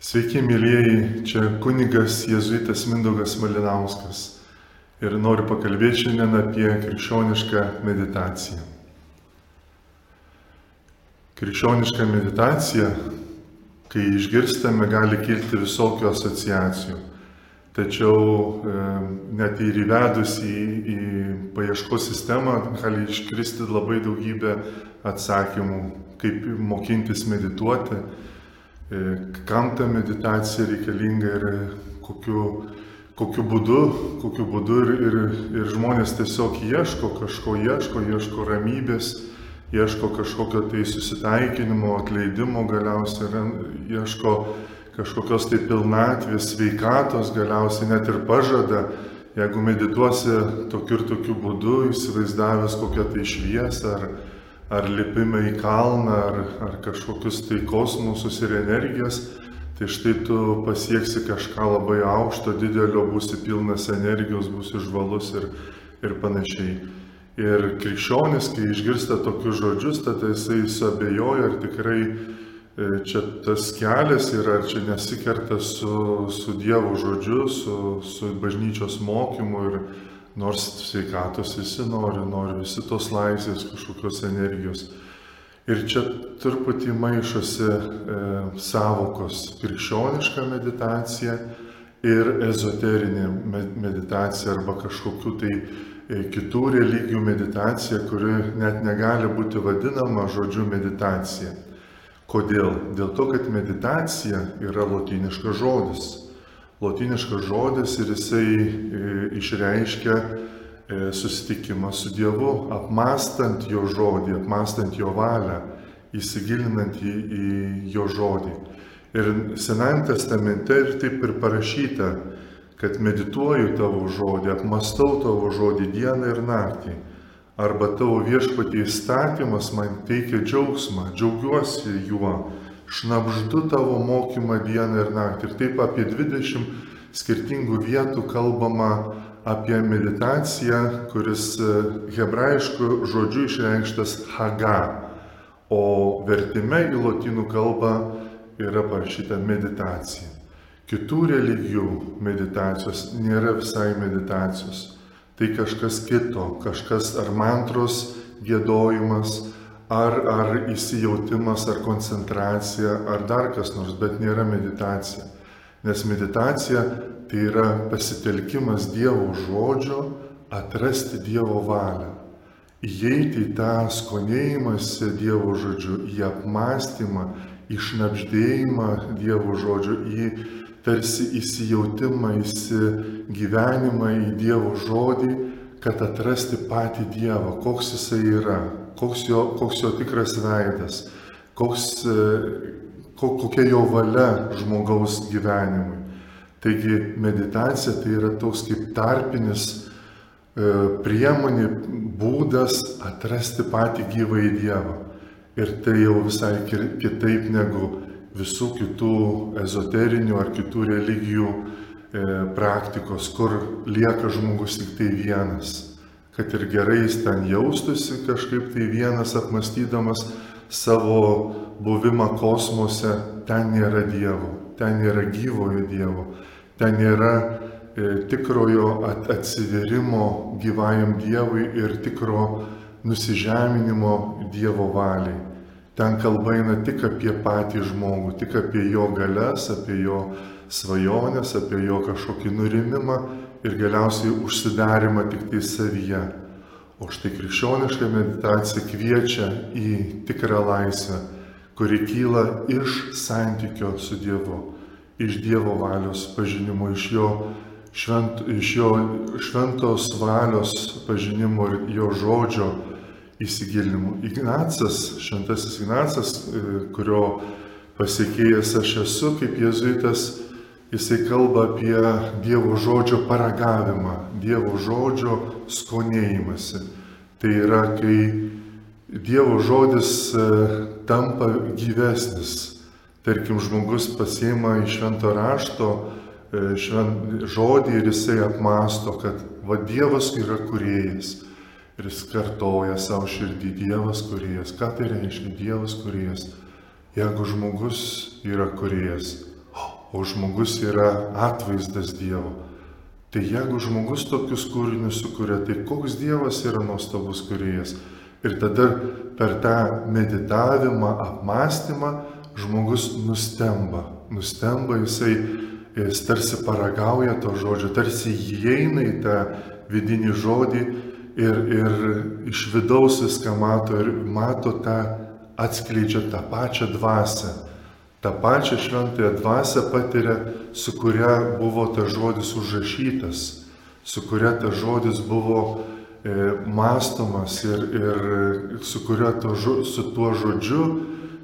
Sveiki, mėlyjeji, čia kunigas jėzuitas Mindaugas Malinauskas ir noriu pakalbėti šiandien apie krikščionišką meditaciją. Krikščioniška meditacija, kai išgirstame, gali kilti visokių asociacijų. Tačiau net ir įvedus į paieškos sistemą gali iškristi labai daugybė atsakymų, kaip mokintis medituoti, kam ta meditacija reikalinga ir kokiu būdu ir žmonės tiesiog ieško ramybės, ieško kažkokio tai susitaikinimo, atleidimo galiausiai, ieško kažkokios tai pilnatvės, sveikatos galiausiai net ir pažada, jeigu medituosi tokiu ir tokiu būdu, įsivaizdavęs kokią tai šviesą ar lipimą į kalną, ar kažkokius tai kosmosus ir energijas, tai štai tu pasieksi kažką labai aukšto, didelio, būsi pilnas energijos, būsi žvalus ir panašiai. Ir krikščionis, kai išgirsta tokius žodžius, tada jisai suabejoja, ar tikrai čia tas kelias yra, ar čia nesikerta su Dievo žodžiu, su bažnyčios mokymu, ir nors sveikatos visi nori visi tos laisvės, kažkokios energijos. Ir čia truputį maišosi sąvokos krikščioniška meditacija ir ezoterinė meditacija arba kažkokių tai kitų religijų meditacija, kuri net negali būti vadinama žodžiu meditacija. Kodėl? Dėl to, kad meditacija yra lotyniškas žodis. Lotyniškas žodis ir jisai išreiškia susitikimą su Dievu, apmąstant jo žodį, apmąstant jo valią, įsigilinant į jo žodį. Ir Senajame testamente ir taip ir parašyta, kad medituoju tavo žodį, apmąstau tavo žodį dieną ir naktį. Arba tavo viešpatie įstatymas man teikia džiaugsmą, džiaugiuosi juo, šnabždu tavo mokymą dieną ir naktį. Ir taip apie 20 skirtingų vietų kalbama apie meditaciją, kuris hebrajišku žodžiu išreikštas haga, o vertime į lotynų kalbą yra parašyta meditacija. Kitų religijų meditacijos nėra visai meditacijos. Tai kažkas kito, kažkas ar mantros giedojimas, ar įsijautimas, ar koncentracija, ar dar kas nors, bet nėra meditacija. Nes meditacija tai yra pasitelkimas Dievo žodžio, atrasti Dievo valią. Įeiti į tą skonėjimąsi Dievo žodžiu, į apmąstymą, į šnabždėjimą Dievo žodžiu, į tarsi įsijautimą, įsigyvenimą į Dievo žodį, kad atrasti patį Dievą, koks jisai yra, koks jo tikras veidas, kokia jo valia žmogaus gyvenimui. Taigi meditacija tai yra toks kaip tarpinis priemonė, būdas atrasti patį gyvąjį Dievą. Ir tai jau visai kitaip negu visų kitų ezoterinių ar kitų religijų praktikos, kur lieka žmogus tik tai vienas. Kad ir gerai jis ten jaustųsi kažkaip tai vienas, apmąstydamas savo buvimą kosmose, ten nėra Dievo, ten nėra gyvojo Dievo, ten nėra tikrojo atsiverimo gyvajam Dievui ir tikro nusižeminimo Dievo valiai. Ten kalba eina tik apie patį žmogų, tik apie jo galias, apie jo svajonės, apie jo kažkokį nurimimą ir galiausiai užsidarimą tik tai savyje. O štai krikščioniška meditacija kviečia į tikrą laisvę, kuri kyla iš santykio su Dievu, iš Dievo valios pažinimo, iš jo šventos valios pažinimo ir jo žodžio įsigilinimų. Šventasis Ignacas, kurio pasekėjas aš esu kaip jėzuitas, jisai kalba apie Dievo žodžio paragavimą, Dievo žodžio skonėjimąsi. Tai yra, kai Dievo žodis tampa gyvesnis. Tarkim, žmogus pasiima iš švento rašto žodį ir jisai apmąsto, kad Dievas yra kūrėjas. Ir jis kartoja savo širdį, Dievas kūrėjas. Ką tai reiškia Dievas kūrėjas? Jeigu žmogus yra kūrėjas, o žmogus yra atvaizdas Dievo. Tai jeigu žmogus tokius kūrinius sukuria, tai koks Dievas yra nuostabus kūrėjas. Ir tada per tą meditavimą, apmąstymą žmogus nustemba, jis tarsi paragauja to žodžio, tarsi įeina į tą vidinį žodį ir iš vidaus viską mato ir mato tą, atskleidžia tą pačią dvasią. tą pačią šventąją dvasią patiria, su kuria buvo tas žodis užrašytas, su kuria tas žodis buvo mąstomas ir su tuo žodžiu,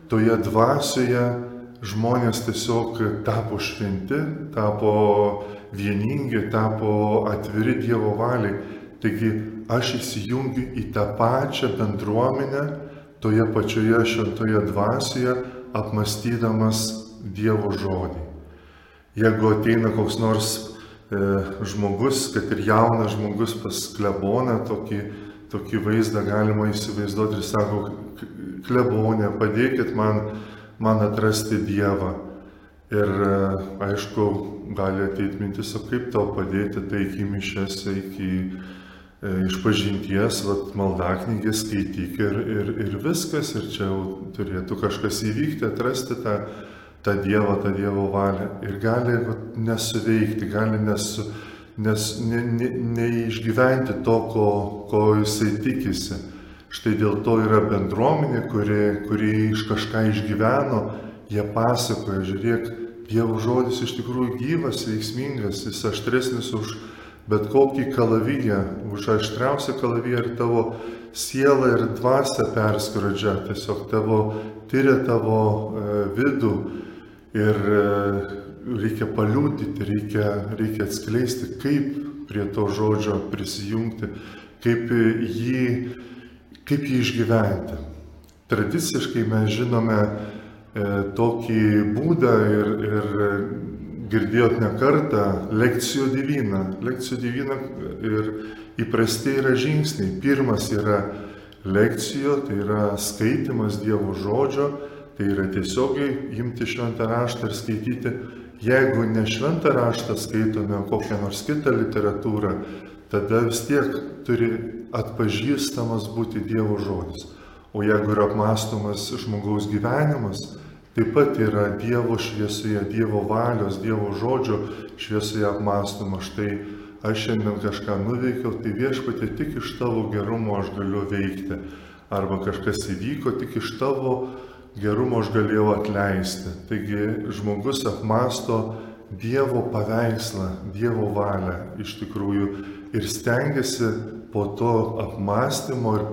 toje dvasioje žmonės tiesiog tapo šventi, tapo vieningi, tapo atviri Dievo valiai. Taigi aš įsijungiu į tą pačią bendruomenę, toje pačioje šventoje dvasioje, apmąstydamas Dievo žodį. Jeigu ateina koks nors žmogus, kad ir jaunas žmogus pas kleboną, tokį vaizdą galima įsivaizduoti ir sako, klebonė, padėkit man atrasti Dievą. Ir aišku, gali ateiti mintis, o kaip tau padėti, tai iki mišiose, iki išpažinties, maldaknygės skaityk ir viskas, ir čia jau turėtų kažkas įvykti, atrasti tą Dievą, tą Dievo valią. Ir gali nesuveikti, gali neišgyventi to, ko jisai tikisi. Štai dėl to yra bendruomenė, kuri iš kažką išgyveno, jie pasakoja, žiūrėk, Dievo žodis iš tikrųjų gyvas, veiksmingas, jis aštresnis už bet kokį kalaviją, už aštriausią kalaviją, ir tavo sielą ir dvasią perskrodžia, tiesiog tyria tavo vidų ir reikia paliudyti, reikia atskleisti, kaip prie to žodžio prisijungti, kaip jį išgyventi. Tradiciškai mes žinome tokį būdą ir girdėjot ne kartą lekcijo divina. Lekcijo divina ir įprastai yra žingsniai. Pirmas yra lekcijo, tai yra skaitimas Dievo žodžio, tai yra tiesiogiai imti šventą raštą ir skaityti. Jeigu ne šventą raštą skaitome, kokią nors kitą literatūrą, tada vis tiek turi atpažįstamas būti Dievo žodis. O jeigu yra apmąstomas žmogaus gyvenimas, taip pat yra Dievo šviesoje, Dievo valios, Dievo žodžio šviesoje apmąstoma. Štai aš šiandien kažką nuveikiau, tai Viešpatie, tik iš tavo gerumo aš galiu veikti. Arba kažkas įvyko, tik iš tavo gerumo aš galėjau atleisti. Taigi žmogus apmąsto Dievo paveikslą, Dievo valią iš tikrųjų ir stengiasi po to apmąstymo ir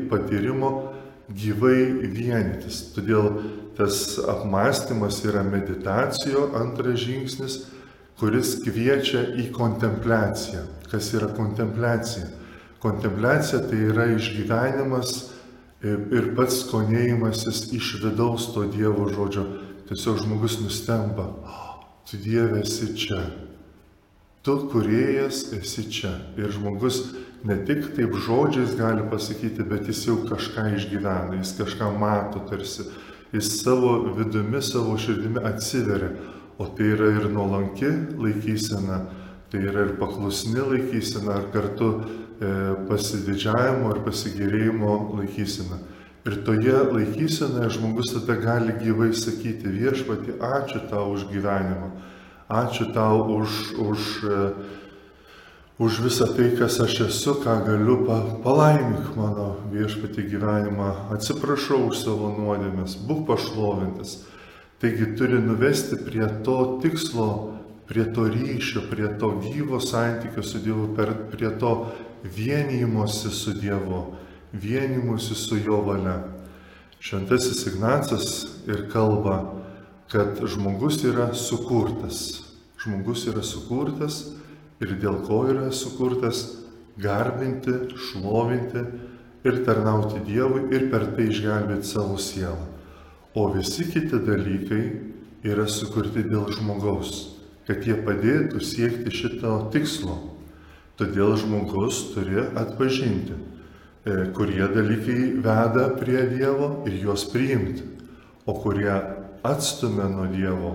patyrimo gyvai vienytis. Todėl tas apmąstymas yra meditacijo antras žingsnis, kuris kviečia į kontempliaciją. Kas yra kontempliacija? Kontempliacija tai yra išgyvenimas ir pats skonėjimasis iš vidaus to Dievo žodžio. Tiesiog žmogus nustemba, tu Dieve esi čia, tu kūrėjas esi čia. Ir žmogus ne tik taip žodžiais gali pasakyti, bet jis jau kažką išgyvena, jis kažką mato tarsi. Jis savo vidumi, savo širdimi atsiveria, o tai yra ir nuolanki laikysena, tai yra ir paklusni laikysena, ar kartu pasididžiavimo ir pasigėrėjimo laikysena. Ir toje laikysenoje žmogus tada gali gyvai sakyti, Viešpatie, ačiū tau už gyvenimą, ačiū tau už visą tai, kas aš esu, ką galiu, palaimink mano Viešpatie gyvenimą, atsiprašau už savo nuodėmes, būk pašlovintas. Taigi turi nuvesti prie to tikslo, prie to ryšio, prie to gyvo santykio su Dievu, prie to vienijimosi su Dievu, vienijimosi su Jo valia. Šventasis Ignacas ir kalba, kad žmogus yra sukurtas. Žmogus yra sukurtas. Ir dėl ko yra sukurtas garbinti, šlovinti ir tarnauti Dievui ir per tai išgelbėti savo sielą. O visi kiti dalykai yra sukurti dėl žmogaus, kad jie padėtų siekti šito tikslo. Todėl žmogus turi atpažinti, kurie dalykai veda prie Dievo ir juos priimti, o kurie atstumia nuo Dievo,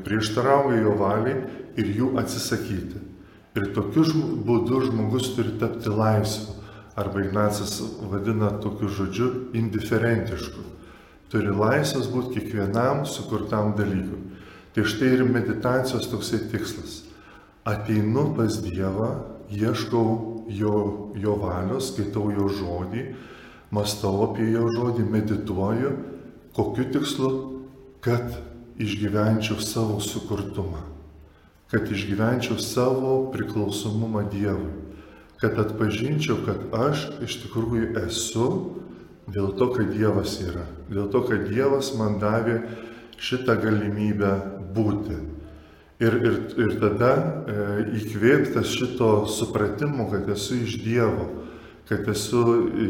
prieštarauja jo valiai ir jų atsisakyti. Ir tokiu būdu žmogus turi tapti laisvu, arba Ignacas vadina tokiu žodžiu indiferentišku. Turi laisvas būti kiekvienam sukurtam dalykui. Tai štai ir meditacijos toksai tikslas. Ateinu pas Dievą, ieškau jo valios, skaitau jo žodį, mąstau apie jo žodį, medituoju, kokiu tikslu, kad išgyvenčiau savo sukurtumą, kad išgyvenčiau savo priklausomumą Dievui, kad atpažinčiau, kad aš iš tikrųjų esu dėl to, kad Dievas yra, dėl to, kad Dievas man davė šitą galimybę būti. Ir tada įkvėptas šito supratimo, kad esu iš Dievo, kad esu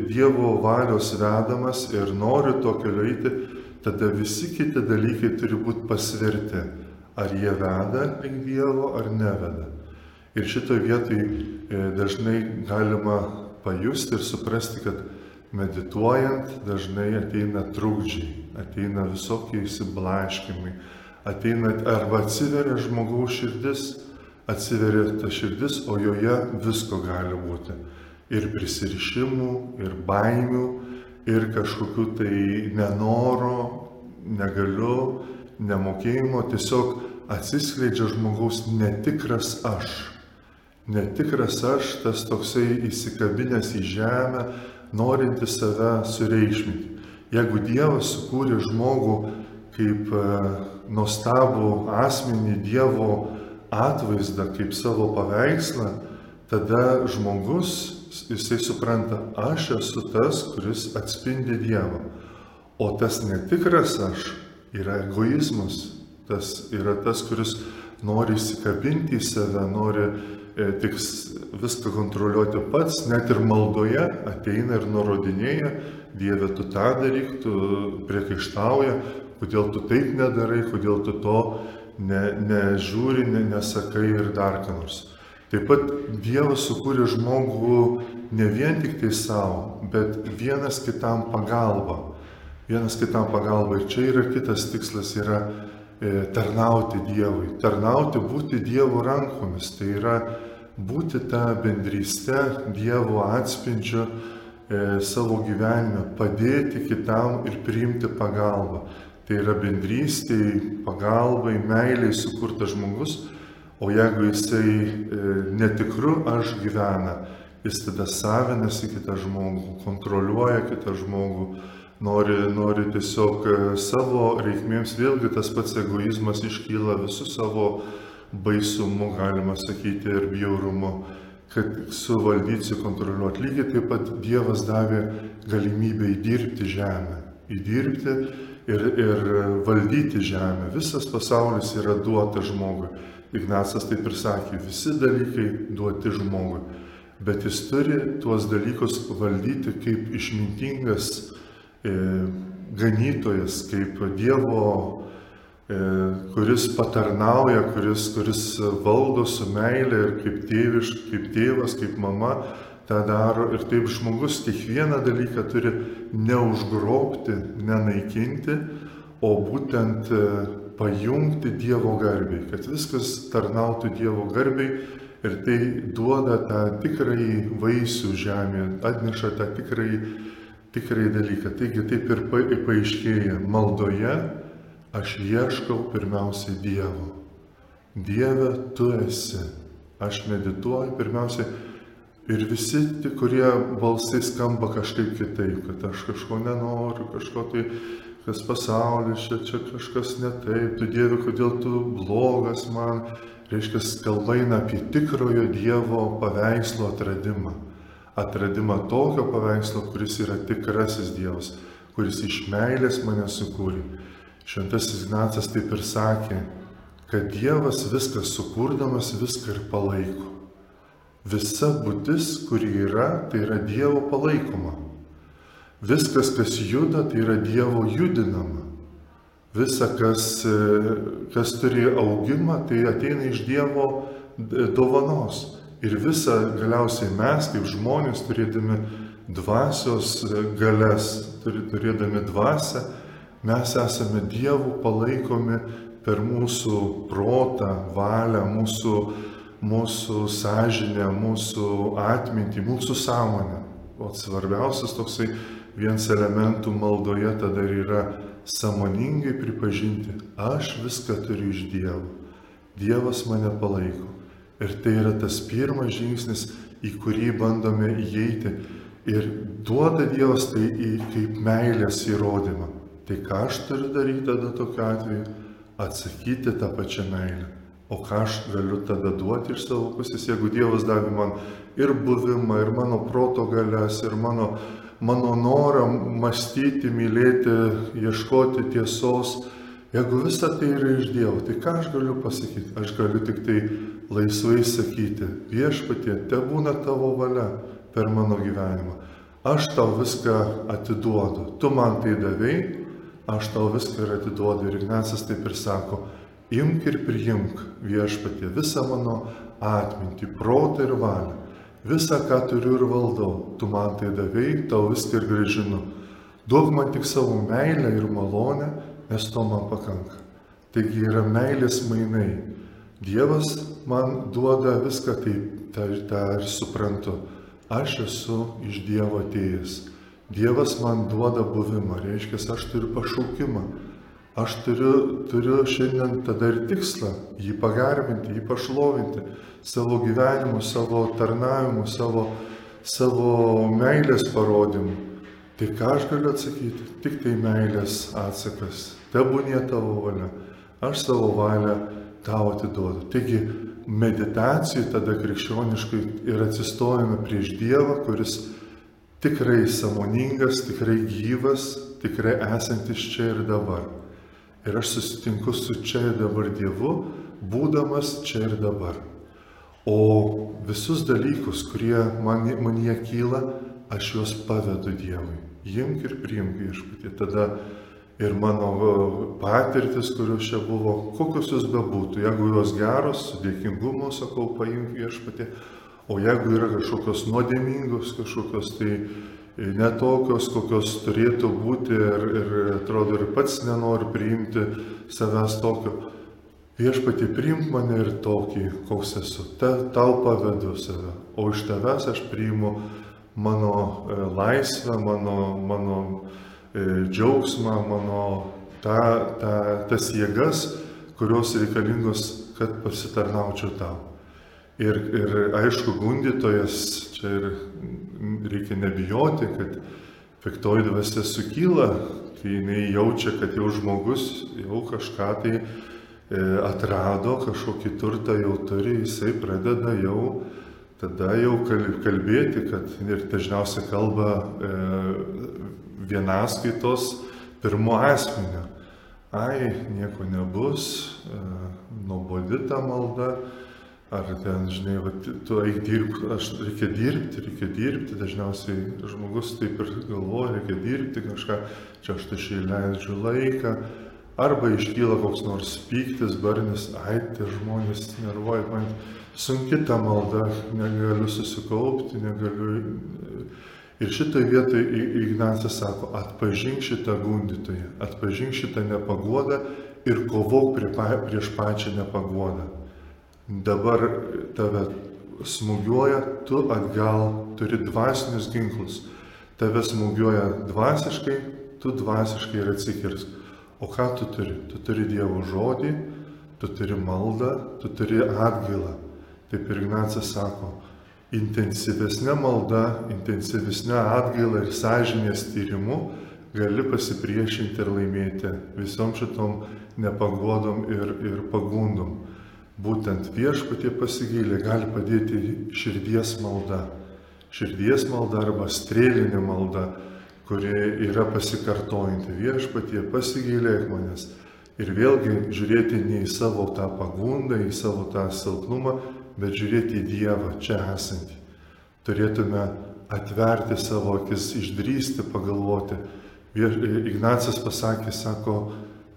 Dievo valios vedamas ir noriu to keliu eiti, tada visi kiti dalykai turi būti pasverti, ar jie veda link Dievo ar neveda. Ir šitoje vietoje dažnai galima pajusti ir suprasti, kad medituojant dažnai ateina trukdžiai, ateina visokie įsiblaškimai, ateina arba atsiveria žmogaus širdis, atsiveria ta širdis, o joje visko gali būti. Ir prisirišimų, ir baimių, ir kažkokių tai nenoro, negaliu, nemokėjimo, tiesiog atsiskleidžia žmogaus netikras aš. Netikras aš, tas toksai įsikabinęs į žemę, norintis save sureikšminti. Jeigu Dievas sukūrė žmogų kaip nuostabų asmenį, Dievo atvaizdą, kaip savo paveikslą, tada žmogus, jisai supranta, aš esu tas, kuris atspindi Dievą. O tas netikras aš yra egoizmas, tas yra tas, kuris nori įsikabinti į save, nori tik viską kontroliuoti pats, net ir maldoje ateina ir nurodinėja, Dieve, tu tą daryk, tu priekaištauja, kodėl tu taip nedarai, kodėl tu to nežiūri, nesakai ir dar ką nors. Taip pat Dievas sukūrė žmogų ne vien tik tai savo, bet vienas kitam pagalba. Vienas kitam pagalba. Ir čia yra kitas tikslas, yra tarnauti Dievui. Tarnauti, būti Dievo rankomis. Tai yra būti tą bendrystę, Dievo atspindžiu savo gyvenime, padėti kitam ir priimti pagalbą. Tai yra bendrystėj, pagalbai, meiliai sukurtas žmogus, o jeigu jisai netikru aš gyvena, jis tada savinasi kitą žmogų, kontroliuoja kitą žmogų, nori tiesiog savo reikmėms, vėlgi tas pats egoizmas iškyla visų savo baisumu, galima sakyti, ir bjaurumu, kad suvaldyti, kontroliuoti. Lygiai taip pat Dievas davė galimybę įdirbti žemę, įdirbti ir valdyti žemę. Visas pasaulis yra duotas žmogui. Ignacas taip ir sakė, visi dalykai duoti žmogui, bet jis turi tuos dalykus valdyti kaip išmintingas ganytojas, kaip Dievo, kuris patarnauja, kuris valdo su meile ir kaip tėvas, kaip mama tą daro. Ir taip žmogus kiekvieną dalyką turi neužgrobti, nenaikinti, o būtent pajungti Dievo garbei, kad viskas tarnautų Dievo garbei ir tai duoda tą tikrąjį vaisių žemėje, atneša tą tikrąjį dalyką. Taigi taip ir paaiškėja maldoje. Aš ieškau pirmiausiai Dievo. Dieve, tu esi. Aš medituoju pirmiausiai ir visi, kurie balsai skamba kažkaip kitaip, kad aš kažko nenoriu, kažko tai, kas pasaulis, čia kažkas ne taip, tu Dieve, kodėl tu blogas man. Reiškia, kalba eina apie tikrojo Dievo paveikslo atradimą. Atradimą tokio paveikslo, kuris yra tikrasis Dievas, kuris iš meilės mane sukūrė. Šventasis Ignacas taip ir sakė, kad Dievas viską sukurdamas viską ir palaiko. Visa būtis, kuri yra, tai yra Dievo palaikoma. Viskas, kas juda, tai yra Dievo judinama. Visa, kas turi augimą, tai ateina iš Dievo dovanos. Ir visa galiausiai mes, kaip žmonės, turėdami dvasios galias, turėdami dvasią, Mes esame Dievo palaikomi per mūsų protą, valią, mūsų sąžinę, mūsų atmintį, mūsų sąmonę. O svarbiausias toksai vienas elementų maldoje tada yra sąmoningai pripažinti, aš viską turiu iš Dievo. Dievas mane palaiko. Ir tai yra tas pirmas žingsnis, į kurį bandome įeiti. Ir duoda Dievas tai kaip meilės įrodymą. Tai ką aš turiu daryti tada tokiu atveju? Atsakyti tą pačią meilę. O ką aš galiu tada duoti iš savo pusės, jeigu Dievas davė man ir buvimą, ir mano proto galias, ir mano norą mąstyti, mylėti, ieškoti tiesos. Jeigu visa tai yra iš Dievo, tai ką aš galiu pasakyti? Aš galiu tik tai laisvai sakyti, Viešpatie, tebūna tavo valia per mano gyvenimą. Aš tau viską atiduodu. Tu man tai davei, aš tau viską ir atiduodu. Ir Ignacas taip ir sako, imk ir priimk, Viešpatie, visą mano atmintį, protą ir valią. Visą, ką turiu ir valdau. Tu man tai davei, tau viską ir grąžinu. Duok man tik savo meilę ir malonę, nes to man pakanka. Taigi yra meilės mainai. Dievas man duoda viską, tai tą ir suprantu. Aš esu iš Dievo atėjęs. Dievas man duoda buvimą, reiškia, aš turiu pašaukimą. Aš turiu šiandien tada ir tikslą jį pagarbinti, jį pašlovinti savo gyvenimu, savo tarnavimu, savo meilės parodymu. Tai ką aš galiu atsakyti? Tik tai meilės atsakas. Tebūnie tavo valia. Aš savo valią tau atiduodu. Taigi meditacijai tada krikščioniškai ir atsistojame prieš Dievą, kuris tikrai sąmoningas, tikrai gyvas, tikrai esantis čia ir dabar. Ir aš susitinku su čia ir dabar Dievu, būdamas čia ir dabar. O visus dalykus, kurie manyje kyla, aš juos pavedu Dievui. Imk ir priimk, Viešpatie. Tada ir mano patirtis, kurios čia buvo, kokios jos bebūtų, jeigu jos geros, su dėkingumu sakau, paimk, Viešpatie. O jeigu yra kažkokios nuodėmingos, kažkokios tai netokios, kokios turėtų būti ir atrodo ir pats nenori priimti savęs tokio. Viešpatie, priimk mane ir tokį, koks esu. Tau pavedu save, o iš tavęs aš priimu mano laisvę, mano džiaugsmą, mano tas jėgas, kurios reikalingos, kad pasitarnaučiau tau. Ir aišku, gundytojas, čia ir reikia nebijoti, kad piktoji dvasia sukyla, kai jinai jaučia, kad jau žmogus jau kažką tai atrado, kažkokį turtą jau turi, jisai pradeda jau tada jau kalbėti, kad ir dažniausiai kalba vienaskaitos pirmo asmenio. Ai, nieko nebus, nuobodi ta malda. Ar ten, žinai, tu eik dirbti, reikia dirbti, dažniausiai žmogus taip ir galvoja, reikia dirbti kažką, čia aš tašiai leidžiu laiką, arba iškyla koks nors pyktis, barnis, ai, tie žmonės nervuoja, man sunki ta malda, negaliu susikaupti, negaliu. Ir šitoj vietoj Ignacas sako, atpažink šitą gundytoją, atpažink šitą nepaguodą ir kovok prieš pačią nepaguodą. Dabar tave smūgiuoja, tu atgal turi dvasinius ginklus. Tave smūgiuoja dvasiškai, tu dvasiškai ir atsikirsk. O ką tu turi? Tu turi Dievo žodį, tu turi maldą, tu turi atgailą. Taip ir Ignacas sako, intensyvesnė malda, intensyvesnė atgaila ir sąžinės tyrimu gali pasipriešinti ir laimėti visom šitom nepagodom ir pagundom. Būtent Viešpatie pasigailė gali padėti širdies malda. Širdies malda arba strėlinė malda, kuri yra pasikartojanti. Viešpatie pasigailėk manęs. Ir vėlgi žiūrėti ne į savo tą pagundą, į savo tą silpnumą, bet žiūrėti į Dievą čia esantį. Turėtume atverti savo akis, išdrįsti, pagalvoti. Ignacas pasakė, sako,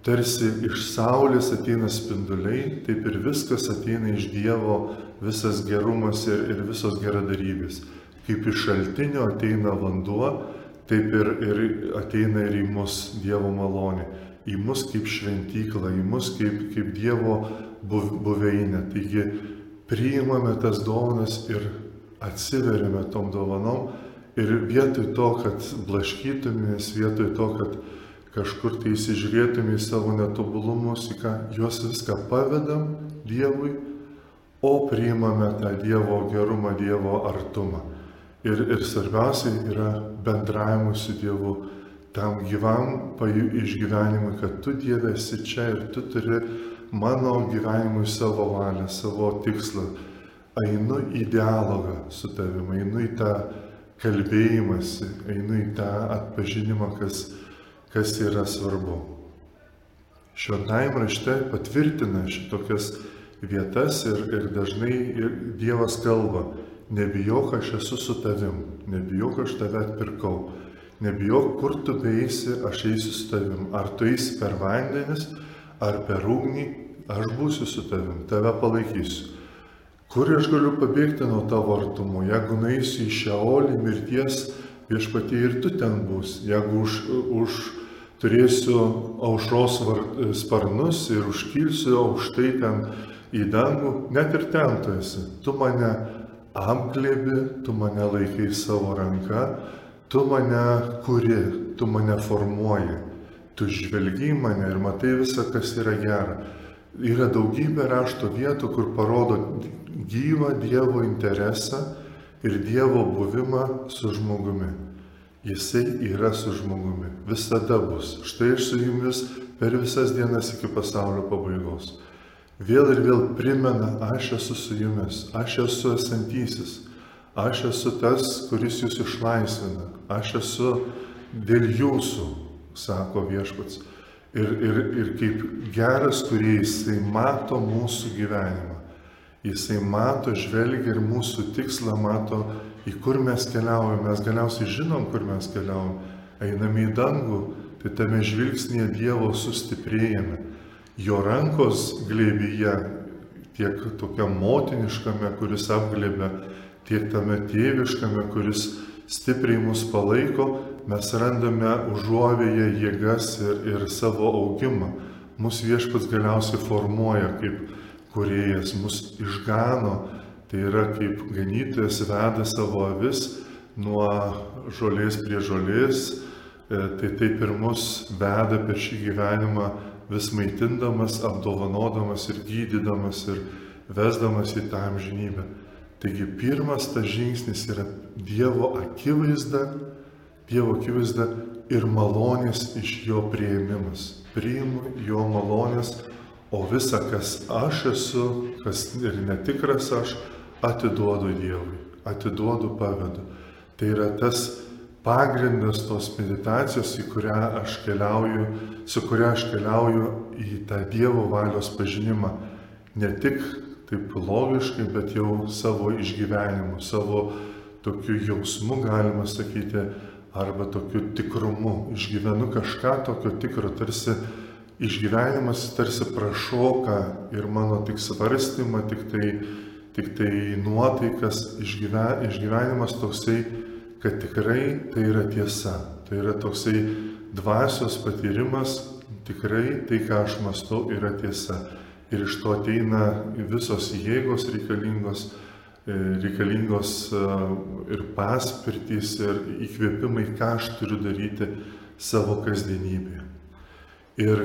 tarsi iš saulės ateina spinduliai, taip ir viskas ateina iš Dievo, visas gerumas ir visos geradarybės. Kaip iš šaltinio ateina vanduo, taip ir ateina ir į mus Dievo malonė, į mus kaip šventyklą, į mus kaip Dievo buveinę. Taigi priimame tas dovanas ir atsiveriame tom dovanom ir vietoj to, kad blaškytumės, vietoj to, kad kažkur tai įsižiūrėtume į savo netobulumus, į ką juos viską pavedam Dievui, o priimame tą Dievo gerumą, Dievo artumą. Ir svarbiausia yra bendravimui su Dievu, tam gyvam išgyvenimui, kad tu Dieve esi čia ir tu turi mano gyvenimui savo valią, savo tikslą. Einu į dialogą su tavimi, einu į tą kalbėjimąsi, einu į tą atpažinimą, kas yra svarbu. Šventajame rašte patvirtina šitokias vietas ir dažnai Dievas kalba: nebijok, aš esu su tavim, nebijok, aš tave atpirkau, nebijok, kur tu beeisi, aš eisiu su tavim, ar tu eisi per vandenis, ar per ugnį, aš būsiu su tavim, tave palaikysiu. Kur aš galiu pabėgti nuo tavo artumo? Jeigu nueisiu į Šeolį, mirties viešpatie, ir tu ten būsi. Jeigu turėsiu aušros sparnus ir užkilsiu aukštai ten į dangų, net ir ten tu esi. Tu mane apglėbi, tu mane laikai savo ranka, tu mane kuri, tu mane formuoji. Tu žvelgi į mane ir matai visą, kas yra gera. Yra daugybė rašto vietų, kur parodo gyvą Dievo interesą ir Dievo buvimą su žmogumi. Jisai yra su žmogumi, visada bus. Štai aš su jumis per visas dienas iki pasaulio pabaigos. Vėl ir vėl primena: aš esu su jumis, aš esu esantysis, aš esu tas, kuris jūs išlaisvina, aš esu dėl jūsų, sako Viešpats. Ir kaip geras kūrėjas, jisai mato mūsų gyvenimą. Jisai mato, žvelgia ir mūsų tikslą mato, į kur mes keliaujame. Mes galiausiai žinom, kur mes keliaujame. Einame į dangų, tai tame žvilgsnėje Dievo sustiprėjame. Jo rankos glėbyje, tiek tokiam motiniškame, kuris apglėbia, tiek tame tėviškame, kuris stipriai mus palaiko, mes randame užuovėje jėgas ir savo augimą. Mūsų Viešpats galiausiai formuoja kaip kūrėjas, mus išgano, tai yra kaip ganytojas veda savo avis nuo žolės prie žolės, tai taip ir mus veda per šį gyvenimą, vis maitindamas, apdovanodamas ir gydydamas ir vesdamas į tą amžinybę. Taigi pirmas tas žingsnis yra Dievo akivaizda ir malonės iš jo priėmimas. Priimu jo malonės, o visa, kas aš esu, kas ir netikras aš, atiduodu Dievui, atiduodu, pavedu. Tai yra tas pagrindas tos meditacijos, su kuria aš keliauju į tą Dievo valios pažinimą. Ne tik taip logiškai, bet jau savo išgyvenimu, savo tokiu jausmu, galima sakyti, arba tokiu tikrumu. Išgyvenu kažką tokio tikro, tarsi išgyvenimas tarsi prašoka ir mano tik svarstymą, tik tai nuotaikas, išgyvenimas toksai, kad tikrai tai yra tiesa. Tai yra toksai dvasios patyrimas, tikrai tai, ką aš mąstau, yra tiesa. Ir iš to ateina visos jėgos reikalingos ir paspirtys, ir įkvėpimai, ką aš turiu daryti savo kasdienybėje. Ir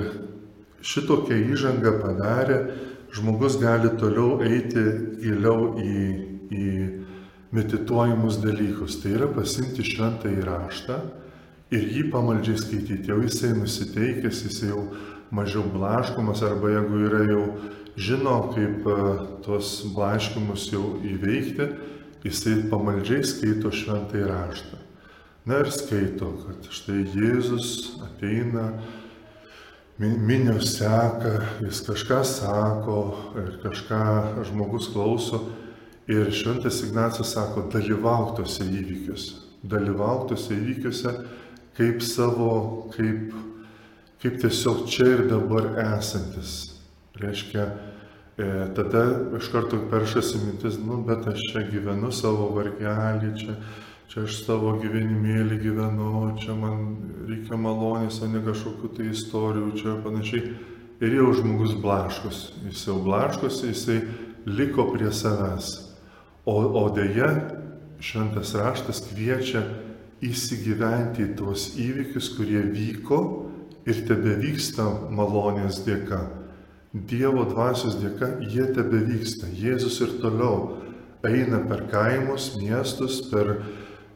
šitokią įžangą padarę, žmogus gali toliau eiti giliau į medituojamus dalykus. Tai yra pasiimti šventąjį raštą ir jį pamaldžiai skaityti. Jau jisai nusiteikęs, jisai jau mažiau blaškomas, arba jeigu yra jau žino, kaip tos blaškymus jau įveikti, jisai pamaldžiai skaito šventąjį raštą. Na ir skaito, kad štai Jėzus ateina, minios seka, jis kažką sako ir kažką žmogus klauso. Ir šventas Ignacas sako, dalyvauk tose įvykiuose kaip tiesiog čia ir dabar esantis. Reiškia, tada iš karto peršasi mintis, bet aš čia gyvenu savo vargelį, čia aš savo gyvenimėlį gyvenu, čia man reikia malonės, o ne kažkokių tai istorijų, čia panašiai. Ir jau žmogus blaškosi, jis jau blaškosi, jisai liko prie savęs. O dėja, šventas raštas kviečia įsigyventi į tuos įvykius, kurie vyko ir tebevyksta malonės dėka. Dievo dvasios dėka jie tebevyksta. Jėzus ir toliau eina per kaimus, miestus, per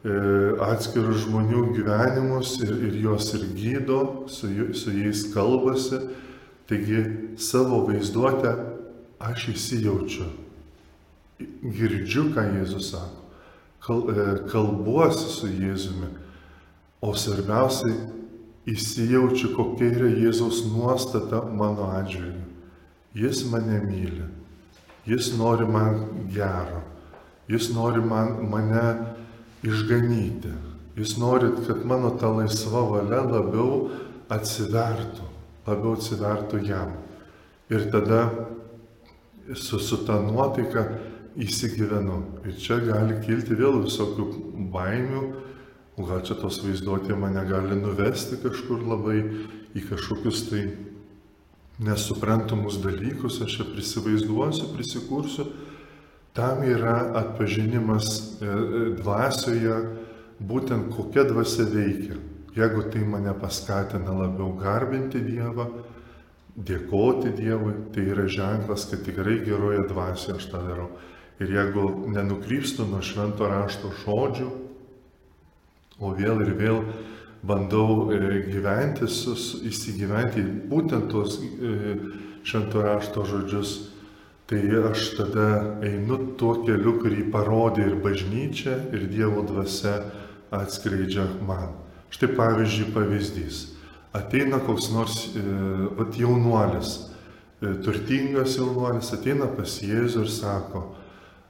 atskirų žmonių gyvenimus ir juos ir gydo, su jais kalbasi. Taigi savo vaizduotę aš įsijaučiu, girdžiu, ką Jėzus sako, kalbuosi su Jėzumi, o svarbiausiai įsijaučiu, kokia yra Jėzaus nuostata mano atžvilgiu. Jis mane myli, jis nori man gero, jis nori mane išganyti, jis nori, kad mano ta laisva valia labiau atsivertų jam. Ir tada su ta nuotaika įsigyvenu. Ir čia gali kilti vėl visokių baimių, o gal čia tos vaizduotė mane gali nuvesti kažkur labai į kažkokius tai nesuprantamus dalykus, aš čia prisivaizduosiu, prisikursiu. Tam yra atpažinimas dvasioje, būtent kokia dvasia veikia. Jeigu tai mane paskatina labiau garbinti Dievą, dėkoti Dievui, tai yra ženklas, kad tikrai geroje dvasioje aš tą darau. Ir jeigu nenukrypstu nuo švento rašto žodžių, o vėl ir vėl bandau gyventi, įsigyventi būtent tuos švento rašto žodžius, tai aš tada einu tuo keliu, kurį parodė ir bažnyčia, ir Dievo dvasia atskleidžia man. Štai pavyzdys. Ateina koks nors jaunuolis, turtingas jaunuolis, ateina pas Jėzų ir sako,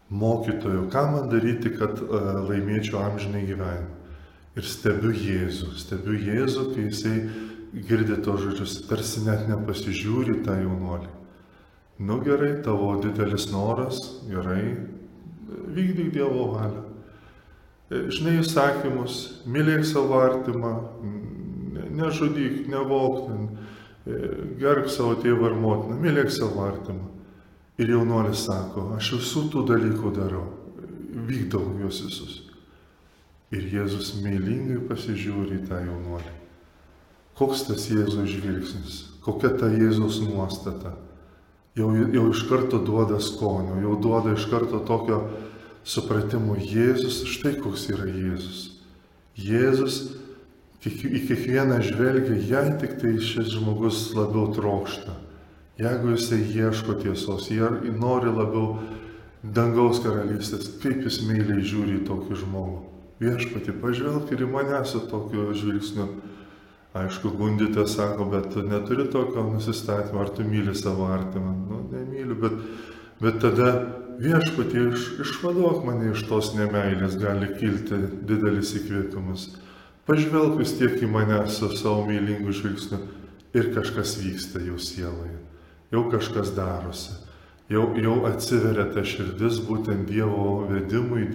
mokytojau, ką man daryti, kad laimėčiau amžinai gyvenimą? Ir stebiu Jėzų, kai jisai girdi tos žodžius, tarsi net nepasižiūri tą jaunuolį. Nu gerai, tavo didelis noras, gerai, vykdyk Dievo valią. Žinai įsakymus, mylėk savo artimą, nežudyk, nevok, gerbk savo tėvą ir motiną, mylėk savo artimą. Ir jaunuolis sako, aš visų tų dalykų darau, vykdau juos visus. Ir Jėzus meilingai pasižiūri į tą jaunuolį. Koks tas Jėzaus žvilgsnis, kokia ta Jėzaus nuostata. Jau iš karto duoda skonio, jau duoda iš karto tokio supratimo. Jėzus, štai koks yra Jėzus. Jėzus į kiekvieną žvelgia, jei tik tai šis žmogus labiau trokšta. Jeigu jisai ieško tiesos, jie nori labiau dangaus karalystės, kaip jis meiliai žiūri į tokį žmogų. Viešpatį, pažvelk ir į mane su tokiu žvilgsniu. Aišku, gundytė sako, bet tu neturi tokio nusistatymo, ar tu myli savo artimą? Nu, nemyliu, bet tada viešpatį išvaduok mane iš tos nemeilės, gali kilti didelis įkvėpimas. Pažvelk vis tiek į mane su savo meilingu žvilgsniu ir kažkas vyksta jau sieloje, jau kažkas darosi, jau atsiveria ta širdis būtent Dievo vedimui,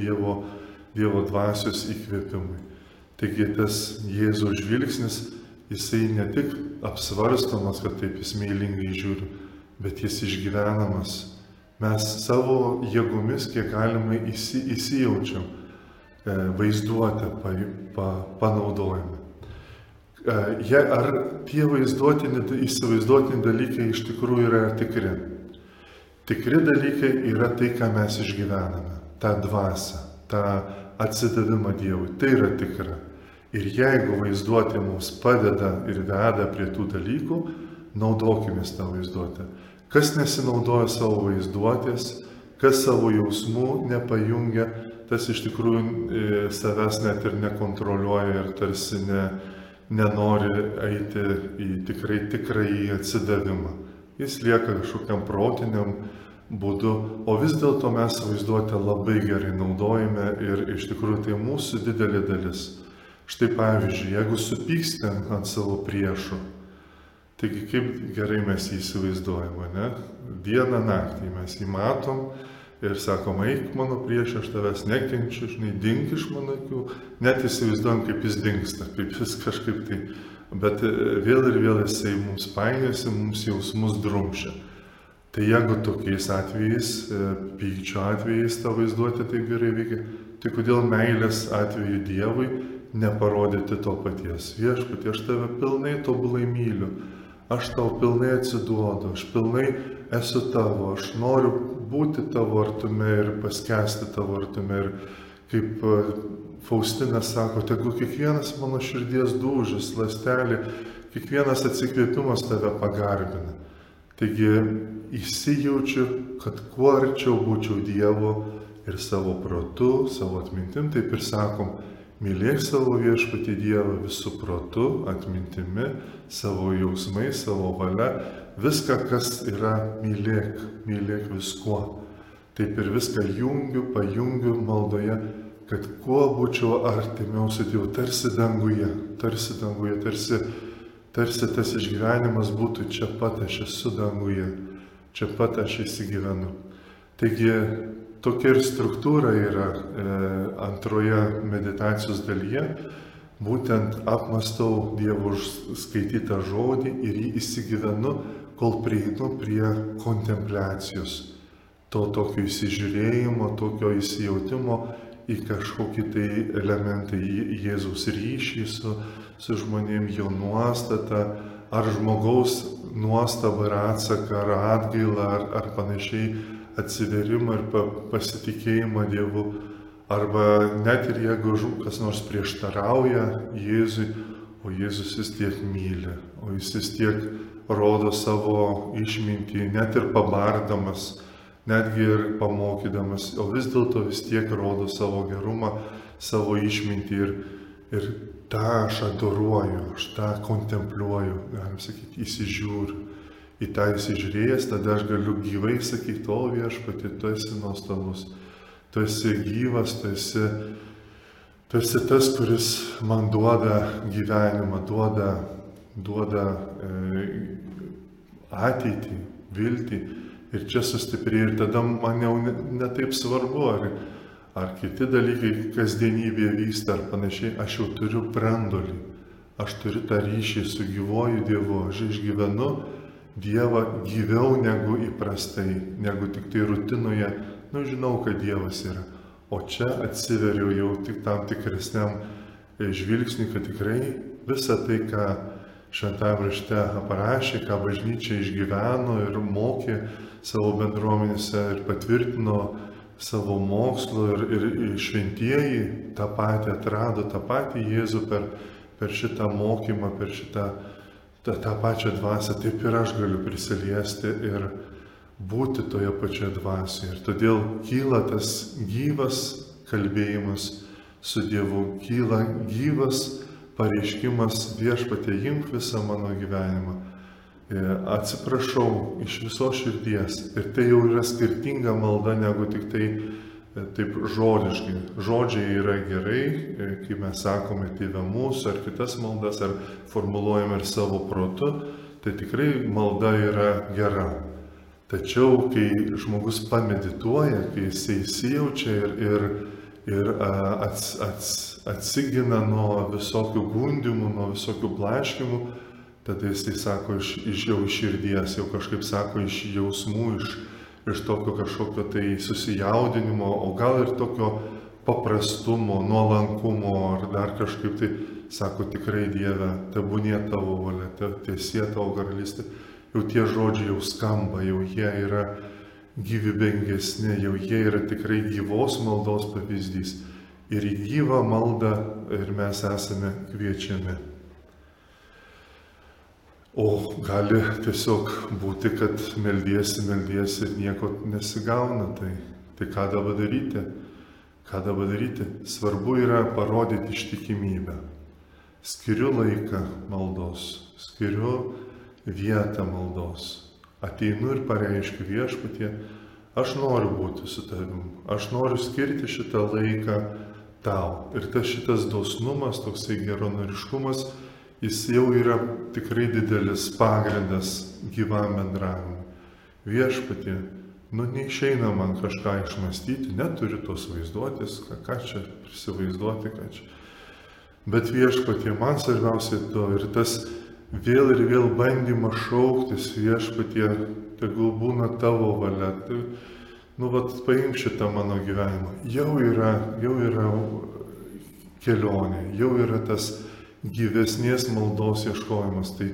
Dievo dvasios įkvėpimui. Taigi tas Jėzaus žvilgsnis, jisai ne tik apsvarstomas, kad taip jis meilingai žiūri, bet jis išgyvenamas. Mes savo jėgomis, kiek galima, įsijaučiam, vaizduotę panaudojame. Ar tie įsivaizduotini dalykai iš tikrųjų yra tikri? Tikri dalykai yra tai, ką mes išgyvename, tą dvasią, tą atsidavimą Dievui. Tai yra tikra. Ir jeigu vaizduotė mums padeda ir veda prie tų dalykų, naudokimės tą vaizduotę. Kas nesinaudoja savo vaizduotės, kas savo jausmų nepajungia, tas iš tikrųjų savęs net ir nekontroliuoja ir tarsi nenori eiti į tikrąjį atsidavimą. Jis lieka kažkokiam protiniam būdu, o vis dėlto mes vaizduotę labai gerai naudojame ir iš tikrųjų tai mūsų didelė dalis. Štai pavyzdžiui, jeigu supykstėm ant savo priešų, taigi kaip gerai mes jį įsivaizduojame, ne? Dieną naktį mes jį matom, ir sakom, eik mano priešė, aš tavęs nekenčiu, žinai, dink iš mano akių, net įsivaizduojam, kaip jis dingsta, kaip jis kažkaip tai, bet vėl ir vėl jisai mums painiasi, mums jausmus drumšia. Tai jeigu tokiais atvejais, pykčio atvejais ta vaizduotė taip gerai veikia, tai kodėl meilės atveju Dievui neparodyti to paties? Viešpatie, aš tave pilnai tobulai myliu, aš tau pilnai atsiduodu, aš pilnai esu tavo, aš noriu būti tavo artume ir paskęsti tavo artume. Ir kaip Faustina sako, tegu kiekvienas mano širdies dūžis, ląstelė, kiekvienas atsikvėpimas tave pagarbina. Taigi įsijaučiu, kad kuo arčiau būčiau Dievo ir savo protu, savo atmintim, taip ir sakom, mylėk savo viešpatį Dievą visų protu, atmintimi, savo jausmais, savo valia, viską, kas yra, mylėk viskuo. Taip ir viską pajungiu maldoje, kad kuo būčiau artimiau su Dievu, tarsi danguje, tarsi tas išgyvenimas būtų čia pat, aš esu danguje, čia pat aš įsigyvenu. Taigi tokia ir struktūra yra antroje meditacijos dalyje, būtent apmastau Dievo skaitytą žodį ir jį įsigyvenu, kol prieinu prie kontempliacijos, to tokio įsižiūrėjimo, tokio įsijautimo į kažkokį tai elementą, į Jėzaus ryšį su žmonėm, jo nuostatą, ar žmogaus nuostabą ir atsaką, ar atgailą, ar panašiai atsiverimą ir pasitikėjimą Dievu, arba net ir jeigu kas nors prieštarauja Jėzui, o Jėzus vis tiek myli, o jis vis tiek rodo savo išmintį, net ir pabardamas, netgi ir pamokydamas, o vis dėlto vis tiek rodo savo gerumą, savo išmintį ir tą aš adoruoju, aš tą kontempliuoju, galim sakyti, įsižiūriu. Į tą įsižiūrėjęs, tada aš galiu gyvai sakyti, o viešpatie, tu esi nuostabus, tu esi gyvas, tu esi tas, kuris man duoda gyvenimą, duoda ateitį, viltį ir čia sustiprėja ir tada man jau netaip svarbu, ar kiti dalykai kasdienybėje vyksta ar panašiai, aš jau turiu brandolį, aš turiu tą ryšį su gyvuoju Dievu, aš išgyvenu Dievą gyviau negu įprastai, negu tik tai rutinoje, žinau, kad Dievas yra, o čia atsiveriu jau tik tam tikresniam žvilgsniui, kad tikrai visa tai, ką Šventajame rašte aprašė, ką bažnyčia išgyveno ir mokė savo bendruomenėse ir patvirtino savo mokslo ir šventieji tą patį atrado, tą patį Jėzų per šitą mokymą, per tą pačią dvasią, taip ir aš galiu prisiliesti ir būti toje pačioje dvasioje. Ir todėl kyla tas gyvas kalbėjimas su Dievu, kyla gyvas pareiškimas, viešpatie, imk visą mano gyvenimą. Atsiprašau iš visos širdies. Ir tai jau yra skirtinga malda negu tik tai taip žodiškai. Žodžiai yra gerai, kai mes sakome Tėve mūsų ar kitas maldas, ar formuluojame ir savo protu, tai tikrai malda yra gera. Tačiau, kai žmogus pamedituoja, kai jisai įsijaučia ir atsigina nuo visokių gundimų, nuo visokių blaškimų, tada jisai sako jau iš širdies, jau kažkaip sako iš jausmų, iš tokio kažkokio tai susijaudinimo, o gal ir tokio paprastumo, nuolankumo, ar dar kažkaip tai sako tikrai Dieve, tebūnie tavo valia, tiesie tavo karalystė. Jau tie žodžiai jau skamba, jau jie yra gyvybingesni, jau jie yra tikrai gyvos maldos pavyzdys. Ir į gyvą maldą ir mes esame kviečiami. O gali tiesiog būti, kad meldiesi ir nieko nesigauna. Tai ką dabar daryti? Ką dabar daryti? Svarbu yra parodyti ištikimybę. Skiriu laiką maldos, skiriu vietą maldos. Ateinu ir pareiškiu Viešpatie, aš noriu būti su tavim, aš noriu skirti šitą laiką tau. Ir šitas dosnumas, toksai geranoriškumas, jis jau yra tikrai didelis pagrindas gyvam bendravimui. Viešpatie, neišeina man kažką išmastyti, neturiu tos vaizduotės, ką čia prisivaizduoti, ką čia. Bet Viešpatie, man svarbiausia to ir tas vėl ir vėl bandymas šauktis, Viešpatie, tegul būna tavo valia. Tai, paimk šitą mano gyvenimą. Jau yra kelionė, jau yra tas gyvesnės maldos ieškojimas. Tai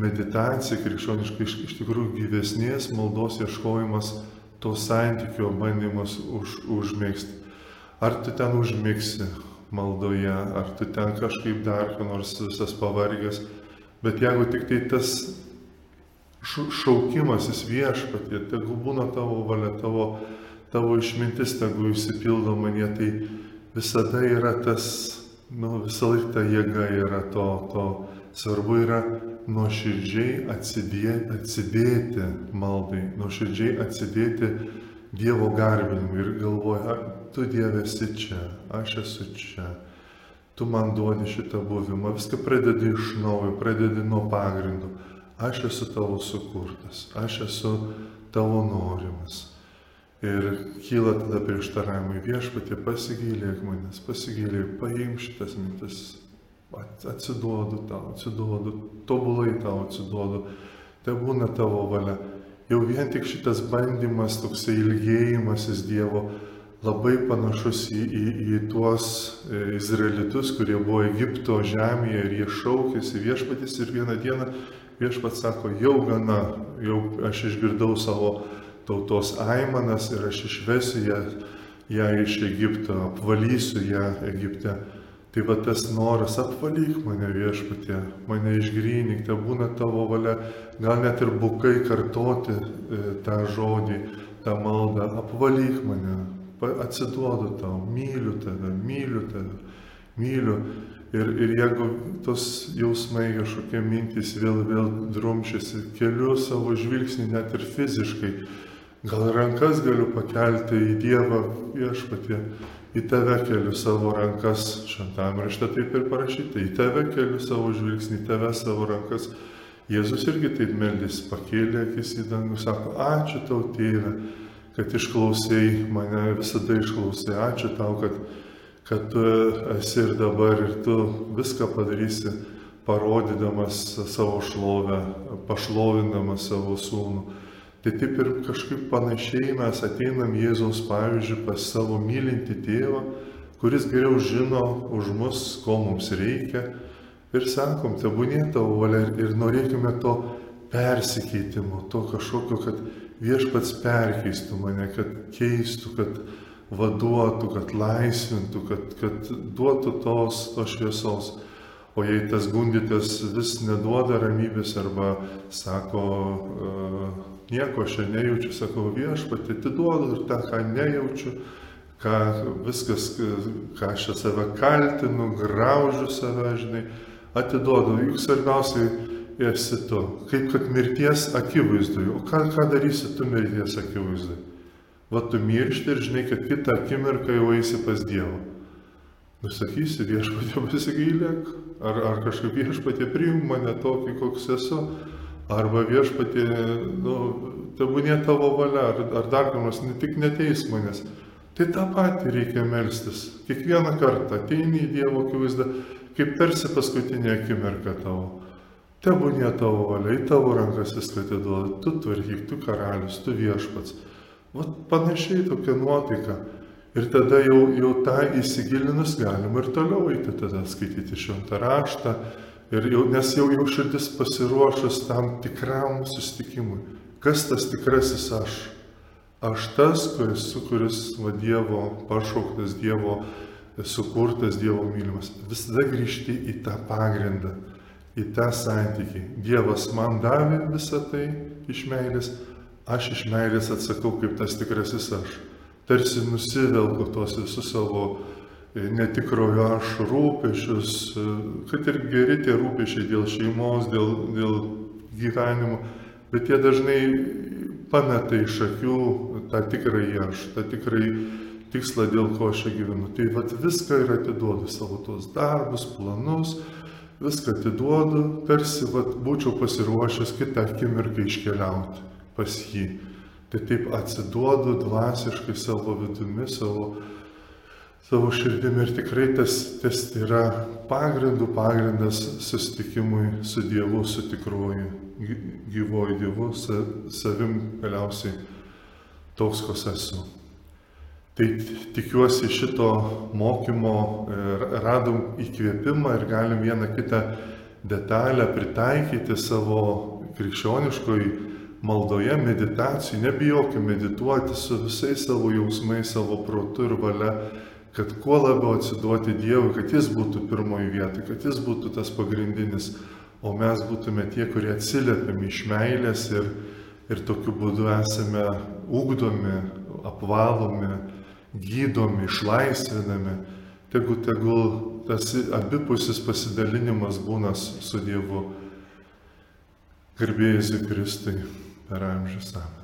meditacija krikščioniškai iš tikrųjų gyvesnės maldos ieškojimas, to santykio bandymas užmėgsti. Ar tu ten užmigsi maldoje, ar tu ten kažkaip dar, nors visas pavargęs, bet jeigu tik tai tas šaukimasis Viešpatie, tegu būna tavo valia, tavo išmintis, tegu išsipildo manie, tai visada yra tas, visą laiką ta jėga yra to. Svarbu yra nuoširdžiai atsidėti maldai, nuoširdžiai atsidėti Dievo garbinimui ir galvoja, tu Dieve esi čia, aš esu čia, tu man duodi šitą buvimą, viską pradedi iš naujo, pradedi nuo pagrindo. Aš esu tavo sukurtas, aš esu tavo norimas. Ir kyla tada prieštaravimai, Viešpatie, pasigailėk manęs, paimk šitas mintis, atsiduodu tau, tobulai tau atsiduodu, te būna tavo valia. Jau vien tik šitas bandymas, toksai ilgėjimasis Dievo, labai panašus į tuos izraelitus, kurie buvo Egipto žemėje ir jie šaukėsi Viešpaties ir vieną dieną Viešpats sako, jau gana, jau aš išgirdau savo tautos aimanas ir aš išvesiu ją iš Egipto, apvalysiu ją Egipte. Tai va tas noras, apvalyk mane Viešpatie, mane išgrynink, te būna tavo valia, gal net ir bukai kartoti tą žodį, tą maldą, apvalyk mane, atsiduodu tau, myliu tave. Ir jeigu tos jausmai kažkokie mintys vėl drumšiasi, keliu savo žvilgsnį net ir fiziškai, gal rankas galiu pakelti į Dievą, Viešpatie, į tave keliu savo rankas, šventame rašte taip ir parašyta, į tave keliu savo žvilgsnį, į tave savo rankas. Jėzus irgi taip meldėsi, pakėlė akis į dangų, sako, ačiū tau, Tėve, kad išklausai mane, visada išklausai, ačiū tau, kad tu esi ir dabar ir tu viską padarysi, parodydamas savo šlovę, pašlovindamas savo sūnų. Tai taip ir kažkaip panašiai mes ateinam Jėzaus pavyzdžiui pas savo mylintį tėvą, kuris geriau žino už mus, ko mums reikia. Ir sakom, tebūnie tavo valia ir norėkime to persikeitimo, to kažkokio, kad Viešpats perkeistų mane, kad keistų, kad vaduotų, kad laisvintų, kad duotų tos šviesos. O jei tas gundytas vis neduoda ramybės arba sako, nieko aš nejaučiu, sakau, Viešpatie, atiduodu ir tą, ką nejaučiu, viskas, ką aš save kaltinu, graužiu save, žinai, atiduodu. Juk svarbiausiai esi tu, kaip kad mirties akivaizdui. O ką darysi tu mirties akivaizdui? Va tu miršti ir žinai, kad kitą akimirką jau eisi pas Dievą. Nusakysi, Viešpatie, pasigailėk, ar kažkaip Viešpatie priimk mane tokį, koks esu, arba Viešpatie, tebūnie tavo valia, ar dar kamas, tik neteisk manęs. Tai tą patį reikia melstis. Kiekvieną kartą ateini į Dievo akivaizdą, kaip tarsi paskutinė akimirka tavo. Tebūnie tavo valia, į tavo rankas viską atiduoda, tu tvarkyk, tu karalius, tu Viešpats. Vat panašiai tokia nuotaika. Ir tada jau tą įsigilinus galima ir toliau eiti, tada skaityti šventą raštą, nes jau širdis pasiruošus tam tikram susitikimui. Kas tas tikrasis aš? Aš tas, kuris Dievo pašauktas, Dievo sukurtas, Dievo mylimas. Visada grįžti į tą pagrindą, į tą santykį. Dievas man davė visą tai iš meilės, aš iš meilės atsakau kaip tas tikrasis aš. Tarsi nusivelku tos visus savo netikrojo aš rūpešius, kad ir geri tie rūpešiai dėl šeimos, dėl gyvenimo, bet jie dažnai pameta iš akių tą tikrąjį aš, tą tikrąjį tikslą, dėl ko aš gyvenu. Tai viską ir atiduodu, savo tos darbus, planus, viską atiduodu, tarsi būčiau pasiruošęs kitą akimirką iškeliauti pas jį. tai taip atsiduodu dvasiškai savo vidumi, savo širdimi ir tikrai tas yra pagrindas susitikimui su Dievu, su tikruoju, gyvuoju Dievu, savim galiausiai toks, koks esu. Tai tikiuosi šito mokymo radom įkvėpimą ir galim vieną kitą detalę pritaikyti savo krikščioniškoj maldoje, meditacijai. Nebijokime medituoti su visais savo jausmais, savo protu ir valia, kad kuo labiau atsiduoti Dievui, kad Jis būtų pirmoji vieta, kad Jis būtų tas pagrindinis, o mes būtume tie, kurie atsiliepiame iš meilės ir tokiu būdu esame ugdomi, apvalomi, gydomi, išlaisvinami. Tegul tas abipusis pasidalinimas būna su Dievu. Garbė Jėzui Kristui per amžius. Amen.